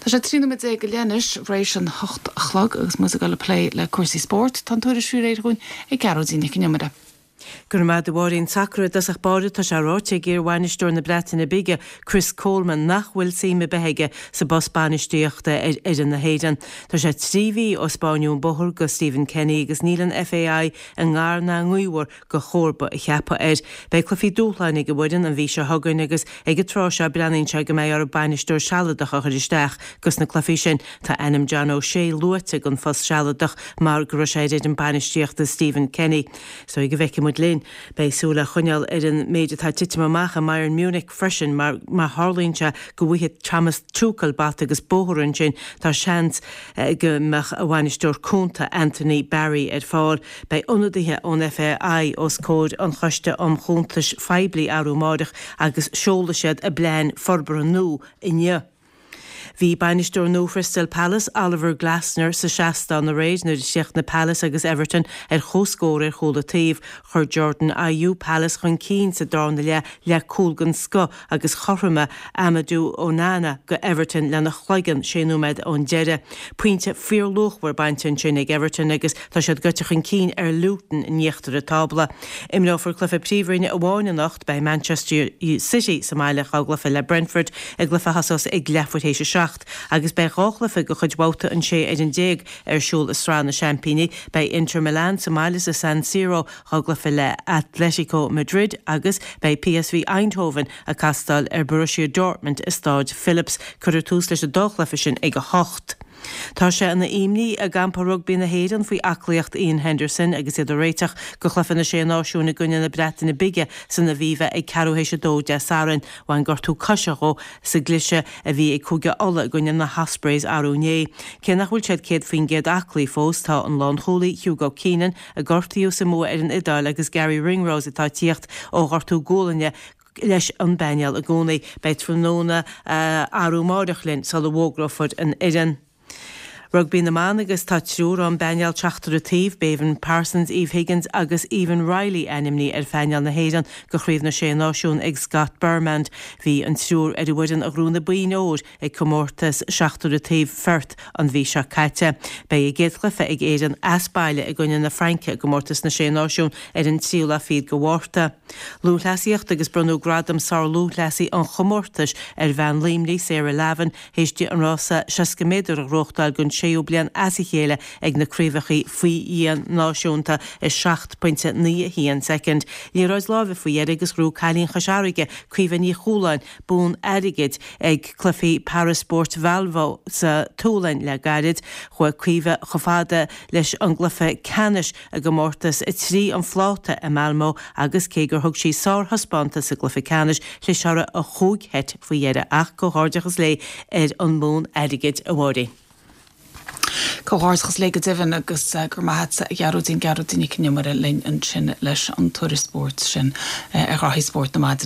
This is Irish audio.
Tá sé 13 nóiméad go leith anois tar éis an 8 a chlog agus muid ag dul ag plé le cúrsaí spóirt. Tá an tuairisc faoi réir dhúinn ag Gearóidín Nic an Iomaire. Go raibh maith agat a Mháirín. Sacar i dtosach báire, tá sé ráite ag iar-bhainisteoir na Breataine Bige, Chris Coleman, nach bhfuil suim ar bith aige sa bpost bainistíochta ar fhoireann na hÉireann. Tá sé 3 mhí ó spáineadh an bóthar go Stephen Kenny agus níl an FAI i ngar ná i ngaobhar go chomharba a cheapadh air. Beidh cluichí dúshláin ag an bhfoireann an mhí seo chugainn agus ag an tráth seo breathnaíonn sé go mbeidh orthu bainisteoir sealadach a chur isteach dos na cluichí sin. Tá ainm John O'Shea luaite don phost sealadach mar go raibh sé ar fhoireann bainistíochta Stephen Kenny. So go bhfeicfidh muid linn. Beidh súil á choinneáil ar an méid atá ag titim amach i mBayern Munich freisin mar má tharlaíonn sé go bhfaighidh Thomas Tuchel bata agus bóthar ansin tá seans go mbeadh a bhainisteoir cúnta Anthony Barry ar fáil. Beidh ionadaithe ón FAI os comhair an Choiste um Chuntais Phoiblí arú amáireach agus seolfaidh siad a bplean forbartha nua inniu. Bhí bainisteoir nua Chrystal Palace, Oliver Glasner, sa seastán aréir nuair a chríochnaigh Palace agus Everton ar comhscór ar chúl an taobh. Chuir Jordan Ayew Palace chun cinn sa darna leath le cúl den scoth agus chothromaigh Amadou Onana go Everton lena chloigeann sé nóiméad ón deireadh. Pointe fíorluachmhar bainte ansin ag Everton agus tá siad gaibhte chun cinn ar Luton in íochtar an tábla. Imreofar cluiche Príomhroinne amháin anocht, beidh Manchester City sa mbaile dhá gcluiche le Brentford i gcluiche a thosós ag leathuair théis a 7 agus beidh dhá chluiche de chuid bhabhta an 16 ar an ar siúl i Sraith na Seaimpíní. Beidh Inter Milan sa mbaile sa San Siro dhá gcluiche le Atletico Madrid agus beidh PSV Eindhoven ag castáil ar Borussia Dortmund i Stáid Philips. Cuirfear tús leis an dá chluiche sin ag 8. Tá sé ina imní i gcampa rugbaí na hÉireann faoi aclaíocht Iain Henderson agus iad ag réiteach do chluiche na Sé Náisiún i gcoinne na Breataine Bige san Aviva ag ceathrú théis a dó Dé Sathairn. Bhain gortú coise dhó sa gcliseadh a bhí ag Cúige Uladh i gcoinne na hOspreys arú inné. Cé nach bhfuil siad 100% aclaí fós, tá an lánchúlaí Hugo Keenan, a gortaíodh sa mbua ar an Iodáil agus Garry Ringrose atá ag tíocht ó ghortú gualainne leis an bpainéal i gcónaí. Beidh tráthnóna arú amáireach linn sula bhfógrófar an fhoireann. Rugbaí na mBan agus tá triúr ón bpainéal seachtar an taobh, Béibhinn Parsons, Eve Higgins agus Aoibheann Reilly ainmnithe ar phainéal na hÉireann do Chraobh na Sé Náisiún ag Scott Burnand. Bhí an triúr ar an bhfoireann a ghnóthaigh na boinn óir ag comórtas seachtar an taobh Pherth an mhí seo caite. Beidh a gcéad chluiche ag Éirinn as baile i gcoinne na Fraince i gcomórtas na Sé Náisiún ar an tríú lá fichead de Mhárta. Lúthchleasaíocht agus bronnadh gradam sár-lúthchleasaí an chomórtais ar bhean Luimnigh, Sarah Lavin, théis di an rása 60 méadar a ghnóthachtáil don séú bliain as a chéile ag na Craobhacha faoi Dhíon Náisiúnta i 7.91 soicind. Liathróid láimhe faoi dheireadh agus ghnóthaigh cailín Chois Fharraige, Caoimhe Ní Chualáin, bonn airgid ag Cluichí Paraspóirt Valbo sa tSualainn le gairid. Chuaigh Caoimhe chomh fada leis an gcluiche ceannais i gcomórtas 3 an phláta i Malmö agus cé gur thug sí sárthaispeántas sa gcluiche ceannais, chlis uirthi an chúig sheit faoi dheireadh. Ach comhghairdeachas léi ar an mbonn airgid, a Mháirín. Comhghairdeachas léi go deimhin agus go raibh maith agatsa a Ghearóidín, Gearóidín Nic an Iomaire linn ansin leis an tuairisc spóirt sin ar ghraithí spóirt na maidine.